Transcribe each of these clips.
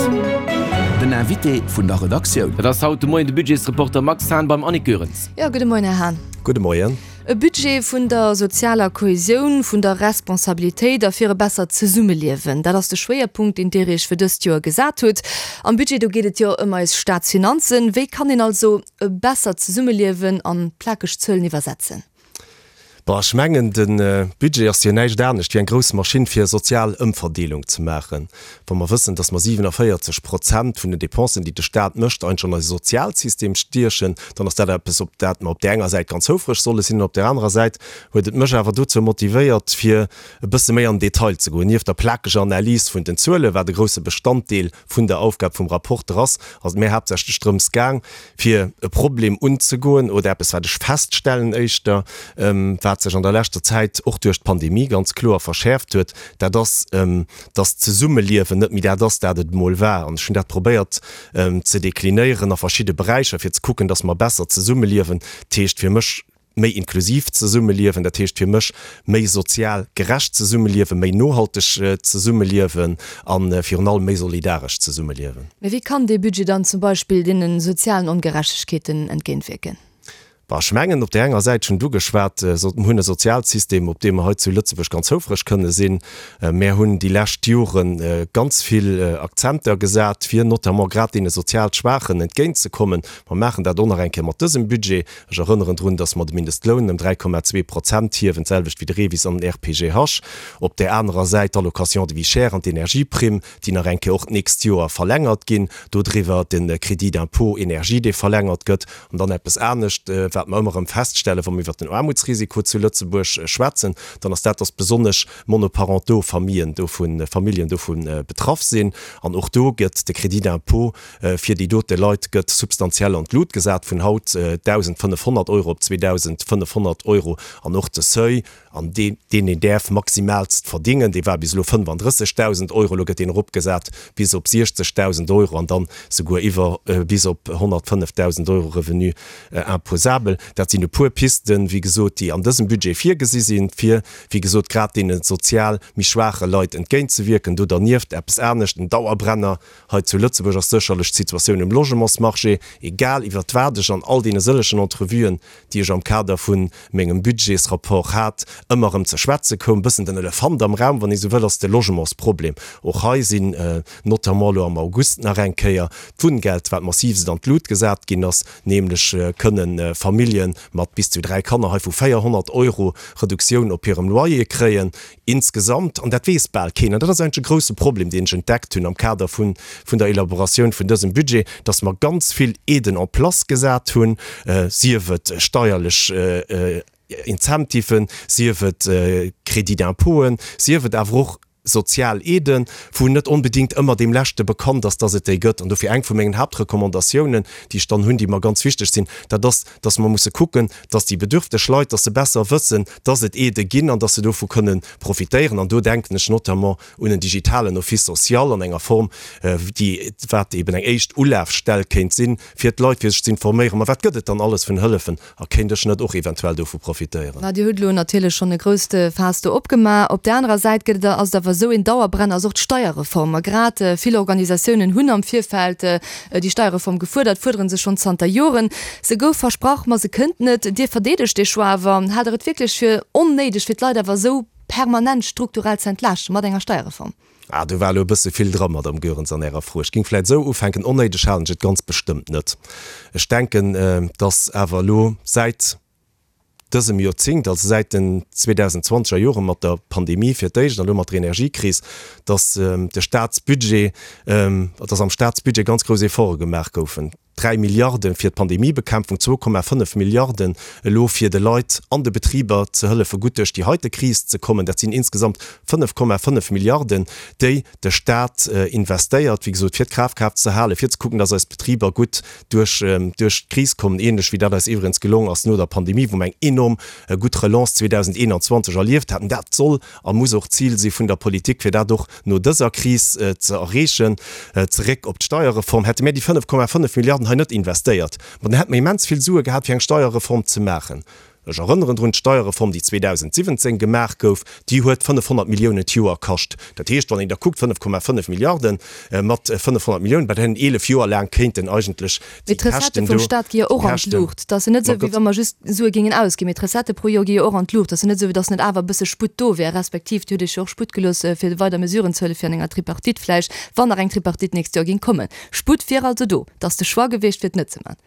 Den Invité vun der Redaktioun. Dat ass haut de Moien de Budgetsreporter Max Hahn beim Annick Goerens. Jo, gudde Moien, Här Hahn. Gudde Moien. E Budget vun der sozialer Kohesioun, vun der Responsabilitéit a fir e bessert Zesummeliewen, dat ass de Schwéierpunkt, deen Dir Iech fir dëst Joer gesat hutt. Am Budget, do geet et jo ëm eis Staatsfinanzen. Wéi kann een also e bessert Zesummeliewen an plakeg Zuelen iwwersetzen? Bon, ech mengen, de Budget ass jo näischt anescht wéi eng grouss Maschinn, fir sozial Ëmverdeelung ze maachen. Wa mer wëssen, dass mer 47 Prozent vun den Dépensen, déi de Stat mécht, eigentlech an eise Sozialsystem stiechen, dann ass dat eppes, op dat mer op där enger Säit ganz houfreg solle sinn. An op där anerer Säit huet et mech awer dozou motivéiert, fir e bësse méi an den Detail ze goen. Nieft der plakeger Analys vun den Zuelen, wat e grouse Bestanddeel vun der Aufgab vum Rapporter ass, ass et mir haaptsächlech drëms gaang, fir e Problem unzegoen oder eppes, wat ech feststellen éischter, wat sech an der leschter Zäit och duerch d'Pandemie ganz kloer verschäerft huet, dat ass, dass d'Zesummeliewen net méi dat ass, dat et emol war. An ech hunn dat probéiert ze deklinéieren a verschidde Beräicher, fir ze kucken, dass mer besser zesummeliewen. Dat heescht fir mech, méi inklusiv zesummeliewen, dat heescht fir mech méi sozial gerecht zesummeliewen, méi nohalteg zesummeliewen a virun allem méi solidaresch zesummeliewen. Mä wéi kann dee Budget dann zum Beispill deene sozialen Ongerechtegkeeten entgéintwierken? Bon, ech mengen, op där enger Säit, ech hunn et ugeschwat, mer hunn e Sozialsystem, op dee mer hei zu Lëtzebuerg ganz houfreg kënne sinn. Mär hunn déi lescht Jore ganz vill Akzenter gesat, fir notamment grad deene sozial Schwaachen entgéintzekommen. Mer maachen dat och nach eng Kéier mat dësem Budget. Ech erënneren drun, dass mer de Mindestloun ëm 3,2 Prozent hiewen, d'selwecht wéi de REVIS an den RPGH. Op där anerer Säit d'Allocation de vie chère an d'Energieprimm, déi nach eng Kéier och d'nächst Joer verlängert ginn. Dodriwwer de Crédit d'impôt énergie, dee verlängert gëtt. An dann eppes anescht, wat mer ëmmer erëm feststellen, wa mer iwwert den Aarmutsrisiko zu Lëtzebuerg schwätzen, dann ass dat, dass besonnesch monoparentaux Famillen dovun, Familljen dovu betraff sinn. An och do gëtt de Crédit d'impôt Fir déi dote Leit gëtt substantiell an d'Lut gesat, vun haut 1.500 Euro op 2.500 Euro. An och de Seuil, an deen een däerf maximaalst verdingen, dee war bis elo 35.000 Euro, elo gëtt deen eropgesat bis op 60.000 Euro an dann souguer iwwer bis op 105.000 Euro Revenu imposable. Dat sinn e puer Pisten, wéi gesot, déi an dësem Budget virgesi sinn, fir, wéi gesot, grad deene sozial méi schwaache Leit entgéintzewierken. Do dernieft eppes anescht, en Dauerbrenner, Hei zu Lëtzebuerg ass sécherlech d'Situatioun um Logementsmarché, egal iwwert wat ech an all deene sëllegen Entrevuen, déi ech am Kader vu mengem Budgetsrapport hat, ëmmer erëm ze schwätze koum, bëssen den Elefant am Raum, wann ee sou wëll, ass de Logementsproblem. Och hei sinn notamment elo am August nach eng Kéier d'Wunngeld, wat massivst an d'Lut gesat ginn ass, nämlech kënne Famillje mat bis zu 3 Kanner hei vu 400 Euro Reduktioun op hirem Loyer kréien. Insgesamt, an dat weess bal keen, an dat ass eigentlech e grouse Problem, deen ech entdeckt hunn am Kader vun der Elaboratioun vun dësem Budget, dass mer ganz vill Aiden en place gesat hunn, sief et steierlech Incentiven, sief et Crédits d'impôten, sief et awer och sozial Aiden, wou net onbedéngt ëmmer deem Leschte bekannt ass, dass et déi gëtt. An dofir eng vu mengen Haaptrecommandatiounen, déi ech dann hunn, déi mer ganz wichteg sinn, dat ass, dass mer musse kucken, dass déi bedürfteg Leit, dass se besser wëssen, dass et Aidë ginn an dass se dovu kënnen profitéieren. An do denken ech notamment un en digitalen Office social an enger Form, déi, wat eben eng éischt Ulafstell kéint sinn, fir d'Leit, fir sech ze informéieren, ma wat gëtt et dann alles vun Hëllefen a kéint ech net och eventuell dovu profitéieren. Ma Dir hutt elo natierlech schonn e grousst Faass do opgemaach. Op där anerer Säit gëtt et, ass et awer esou, een Dauerbrenner ass och d'Steierreform. A grad vill Organisatiounen hunn am Virfeld déi Steierreform gefuerdert, fuerdere se schonn zanter Joren. Se gouf versprach, ma se kënnt net. Dir verdeedegt dee Choix awer. Haalt Der et wierklech fir onnéideg, fir d'Leit awer esou permanent strukturell ze entlaaschten mat enger Steierreform? Ah, do war elo e bësse vill dra, Madamm Goerens, an Ärer Fro. Ech géing vläicht esou ufänken, Onnéideg halen ech et ganz bestëmmt net. Ech denken, dass awer elo säit dësem Joerzéngt, also säit den 2020 er Jore mat der Pandemie fir d'éischt an elo mat der Energiekris, dass de Staatsbudget, dass am Staatsbudget ganz grouss Efforte gemaach goufen. 3 Milliarde fir d'Pandemiebekämpfung, 2,5 Milliarden elo fir de Leit an de Betriber ze hëllefe gutt duerch déi heite Kris ze kommen. Dat sinn insgesamt 5,5 Milliarden, déi de Staat investéiert, wéi gesot, fir d'Krafkraaft ze halen, fir ze kucken, dass eis Betriber gutt duerch duerch d'Kris kommen, ähnlech wéi dat eis iwwregens gelong ass no der Pandemie, wou mer eng enorm gutt Relance 2021 erlieft haten. Dat soll a muss och d'Zil si vun der Politik, fir dat och no dëser Kris ze erreechen. Zeréck op d'Steierreform, Hätte mir déi 5,5 Milliarden hei net investéiert, ma dann hätte mer immens vill Sue gehat, fir eng Steierreform ze maachen. Ech erënneren drun, d'Steierreform, déi 2017 gemaach gouf, déi huet 500 Milliounen d'Joer kascht. Dat heescht, wann een da kuckt, 5,5 Milliarde mat 500 Milliounen, bei deenen 11 Joer laang kéinten eigentlech déi Käschten do. Mee d'Recettë vum Stat gi jo och an d'Luucht. Et ass jo net esou, wéi wa mer just Sue géingen ausginn, mee d'Recettë pro Joer gi jo och an d'Luucht. Et ass jo net esou, wéi datt net awer e bësse Sputt do wär, respektiv Dir hutt Iech jo och Sputt gelooss, fir weider Mesuren ze huelen, fir an enger Tripartite vläicht, wann nach eng Tripartite d'nächst Joer géing kommen. Sputt wier also do. Et ass de Choix gewiescht, fir et net ze maachen.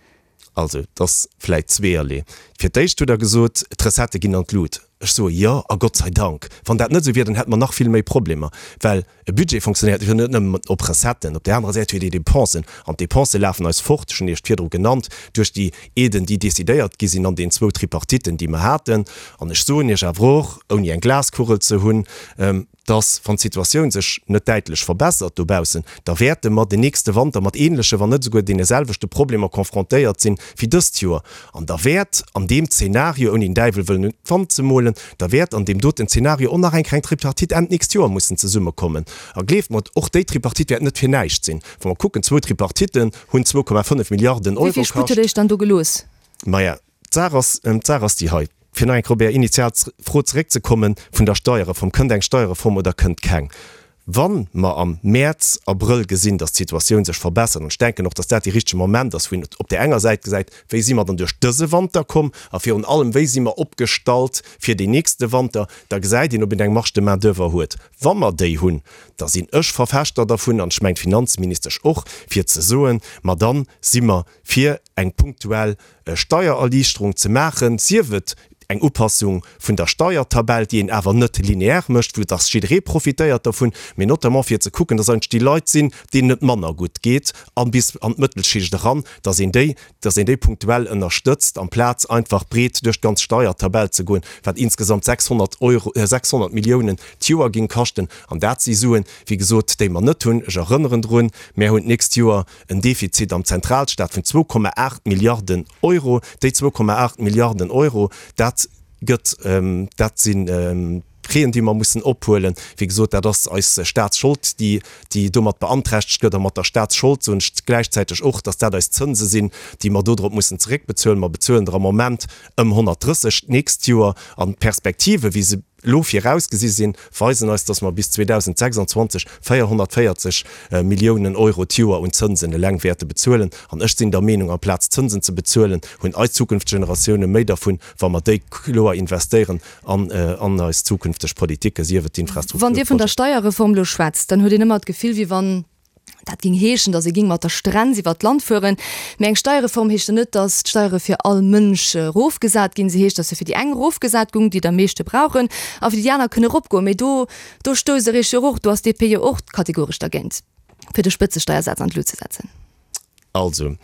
Also, et ass vläit zweeërlee. Fir d'éischt hutt Der gesot, d'Recettë ginn an d'Lut. Ech soe jo, a Gott sei Dank. Wann dat net esou wier, dann hätte mer nach vill méi Problemer, well e Budget fonctionnéiert jo net nëmmen op Recetten. Op där anerer Säit huet ee Dépensen, an d'Dépensë lafen eis fort, ech hunn Iech virdru genannt, duerch déi Aiden, déi decidéiert gi sinn an den zwou Tripartiten, déi mer haten. An ech soen Iech awer och, ouni eng Glaskugel ze hunn, dass, wann d'Situatioun sech net däitlech verbessert dobaussen, da wäerte mer den nächste Wanter mat ähnleche, wann net esouguer deene selwechte Problemer confrontéiert sinn wéi dëst Joer. An da wäert an deem Zeenario, ouni den Däiwel wëllen un d'Wand ze molen, da wäert an deem doten Zeenario och nach eng kleng Tripartite Enn d'nächst Joer mussen zesummekommen. A gleeft mer, och déi Tripartite wäert net fir näischt sinn. Wa mer kucken, zwou Tripartitten hunn 2,5 Milliarden Wéi Euro vill Sputt kascht. hutt Der Iech dann do gelooss? Maja, d'Saach ass, d'Saach ass déi hei, fir nach eng Kéier op Är initial Fro zeréckzekommen vun der Steierreform, Kënnt eng Steierreform oder kënnt keng? Wa mer am Mäerz, Abrëll gesinn, datt d'Situatioun sech verbessert, an ech denken och, datt dat dee richtege Moment ass, wou een op där enger Säit gesäit, wéi si mer dann duerch dëse Wanter komm a virun allem, wéi si mer opgestallt fir deen nächste Wanter, da gesäit een, ob een eng Marge de main-d'oeuvre huet. Wa mer déi hunn, da sinn ech Verfechter dervun, an ech mengen d'Finanzministesch och, fir ze soen, ma dann si mer fir eng punktuell Steiererliichterung ze maachen, sief et eng Upassung vun der Steiertabell, déi een awer net lineaire mécht, wou dass jidderee profitéiert dervun, mee notamment fir ze kucken, dass eigentlech déi Leit sinn, deenen et manner gutt geet a bis an d'Mëttelschicht eran, dass een déi, dass een déi punktuell ënnerstëtzt, amplaz einfach breet duerch d'ganz Steiertabell ze goen, wat insgesamt 600 Euro, 600 Milliounen d'Joer géing kaschten. An dat si Suen, wéi gesot, déi mer net hunn. Ech erënneren drun, Mär hunn d'nächst Joer En Defizit am Zentralstaat vun 2,8 Milliarden Euro. Déi 2,8 Milliarden Euro, dat gëtt, dat si Prêten, déi mer mussen ophuelen. Wéi gesot, dat ass eis Staatsschold, déi, déi domat beanträchtegt gëtt. A mat der Staatsschold soen ech gläichzäiteg och, datt dat eis Zënse sinn, déi mer dodrop mussen zeréckbezuelen. Mer bezuelen der am Moment ëm 130 d'nächst Joer. An d'Perspektive wéi se elo virausgesi sinn, weisen eis, dass mer bis 2026 440 Milliounen Euro d'Joer un Zënsen eleng wäerte bezuelen. An ech sinn der Meenung, amplaz Zënsen ze bezuelen, hunn eis zukünfteg Generatioune méi dervun, wa mer déi kloer investéieren an an eis zukünfteg Politiken, sief et Wann Dir vun der d'Infrastrukturprojeten. Steierreform elo schwätzt, dann huet een ëmmer d'Gefill, wéi wann Dat géing heeschen, datt ee géing mat der Strenz iwwert d'Land fueren. Mee eng Steierreform heescht jo net, datt d'Steiere fir all Mënsch erofgesat ginn. Se heescht, datt se fir déi eng erofgesat gung, déi et am meeschte brauchen, a fir déi aner kënne eropgoen. Mee do, do stousst Der Iech jo och, do ass d'DP jo och kategoresch dergéint, fir de Spëtzesteiersaz an d'Lut ze setzen. Also,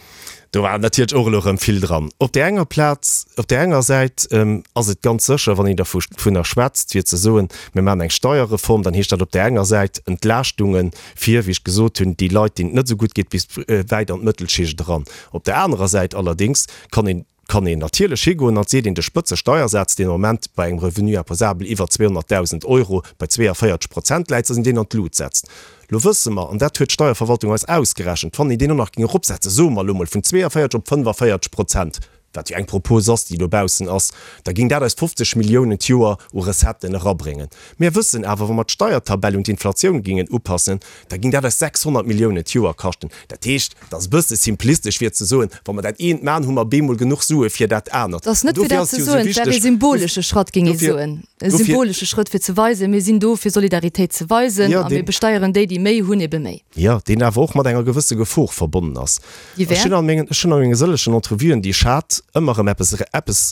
do war natierlech och elo erëm vill dran. Op där enger Plaz, op där enger Säit ass et ganz sécher, wann een dervunner schwätzt, fir ze soen, mir maachen eng Steierreform, dann heescht dat op där enger Säit Entlaaschtunge fir, wéi ech gesot hunn, déi Leit, deenen et net esou gutt geet, bis wäit an d'Mëttelschicht eran. Op där anerer Säit allerdéngs kann een, kann een natierlech higoen an seet een, de Spëtzesteiersaz, deen am Moment bei engem Revenu imposable iwwer 200.000 Euro bei 42 Prozent läit, dass een deen an d'Lut setzt. Lo wësse mer, an dat huet d'Steierverwaltung eis ausgerechent, wann een deen och nach géing eropsetzen, soe mer elo mol vun 42 op 45 Prozent, wat jo eng Propos ass, déi dobaussen ass, da géing dat eis 50 Milliounen d'Joer u Recetten erabréngen. Mir wëssen awer, wa mer d'Steiertabell un d'Inflatioun géingen upassen, da géing dat eis 600 Milliounen d'Joer kaschten. Dat heescht, et ass e bësse simplistesch fir ze soen, wa mer dat eent maachen, hu mer bemol genuch Sue fir dat anert. Et ass net fir dat ze soen, et wär ee symbolesche Schratt, géing ee soen, e symbolesche Schrëtt fir ze weisen, mir sinn do fir Solidaritéit ze weisen a mir besteieren déi, déi méi hunn, ebe méi. Jo, deen awer och mat enger gewësse Gefor verbonnen ass. Déi wär? Ech hunn a menge sëllegen Entrevuen, déi ech hat, ëmmer erëm eppes, eppes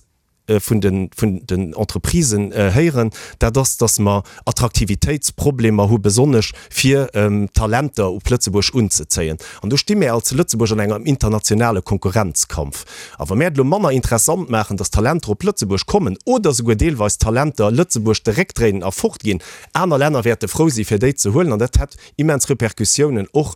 vun de vun den Entreprisen héieren, dat ass, datt mer Attraktivitéitsproblemer hu besonnesch fir Talenter op Lëtzebuerg unzezéien. An do sti mär als Lëtzebuerg an engem internationale Konkurrenzkampf. A wa mär et elo manner interessant maachen, datt Talenter op Lëtzebuerg kommen oder esouguer deelweis Talenter Lëtzebuerg de Réck dréinen a fortginn, aner Länner wäerte frou si fir déi ze huelen an dat hätt immens Repercussiounen och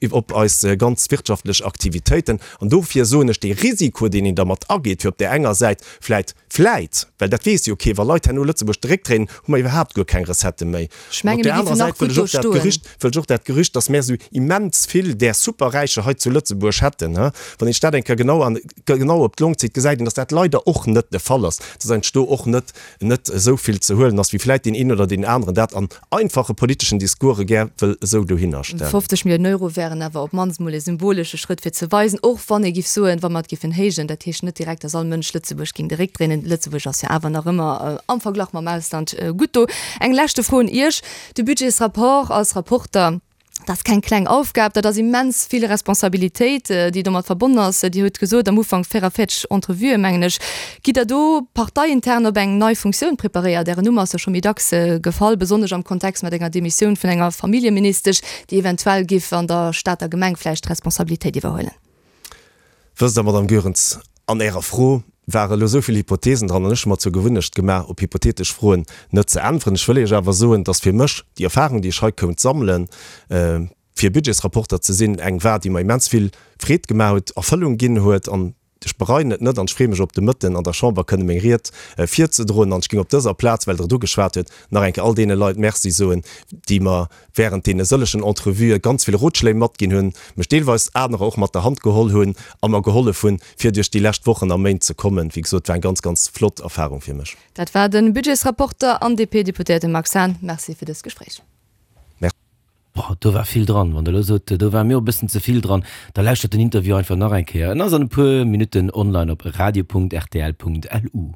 op eis ganz wirtschaftlech Aktivitéiten. An dofir soen ech, dee Risiko, deen een dermat ageet, fir op där enger Säit vläit. Säit, vläit, well dat weess jo kee, wa Leit herno Lëtzebuerg de Réck dréinen, hu mer iwwerhaapt guer keng Recettë méi. Ech An op menge där mir anerer géifen nach Säit wëll gutt ech do och dat stoen. Gerücht, wëll ech och dat Gerücht, dass mär esou immens vill där Superräicher hei zu Lëtzebuerg hätten, he, wann een sech dat eng Kéier genau an, genau op d'Long zitt, gesäit een, dass dat leider och net de Fall ass, dass eigentlech do och net, net esou vill ze huelen ass, wéi vläit deen een oder deen aneren dat an einfache politeschen Discourse gär wëll esou dohinner stellen. 50 Milliounen Euro wären awer op d'mannst emol e symbolesche Schrëtt fir ze weisen, och wann ee giff soen, wa mer et giffen héijen, dat heescht net direkt, dass all Mënsch Lëtzebuerg géing de Réck dréinen. Lëtzebuerg ass jo awer nach ëmmer am Verglach mam Ausland gutt do. Eng leschte Fro un Iech, De Budgetsrapport als Rapporter, Dat ass keng kleng Aufgab, dat ass immens vill Responsabilitéit, déi domat verbonnen ass. Dir hutt gesot am Ufank 44 Entrevuen, mengen ech. Gitt Der do parteiintern op eng nei Funktioun preparéiert? Ären Numm ass jo scho méi dacks gefall, besonnesch am Kontext mat enger Demissioun vun enger Familljeministesch, déi eventuell giff an der Stater Gemeng vläicht Responsabilitéit iwwerhuelen. Wësst Der, Madame Goerens, an Ärer Fro ware elo esou vill Hypothesen dran, an ech hu mer zur Gewunnecht gemaach, op hypothetesch Froen net ze äntweren. Ech wëll Iech awer soen, dass fir mech déi Erfahrung, déi ech hei kount sammelen, fir Budgetsrapporter ze sinn, eng war, déi mer immens vill Freed gemaach huet, Erfëllung ginn huet. An ech bereien et net an ech freeë mech op de Mëtten an der Chamber kënne meng Ried virzedroen. An ech géing op dëser Plaz, well Der et ugeschwat huet, nach eng Kéier all deene Leit Merci soen, déi mer während deene sëllegen Entrevuë ganz vill Rotschléi matginn hunn, mech deelweis anerer och mat der Hand geholl hunn a mer gehollef hunn, fir duerch déi lescht Wochen a Méint ze kommen. Wéi gesot, war eng ganz, ganz flott Erfahrung fir mech. Dat war de Budgetsrapporter an DP-Deputéierte Max Hahn. Merci fir dëst Gespréich. Merci. Boah, do war vill dran. Wann der elo sot, do war mir och e bëssen ze vill dran, da lauschtert den Interview einfach nach eng Kéier. En ass an e puer Minutten online op radio.rtl.lu.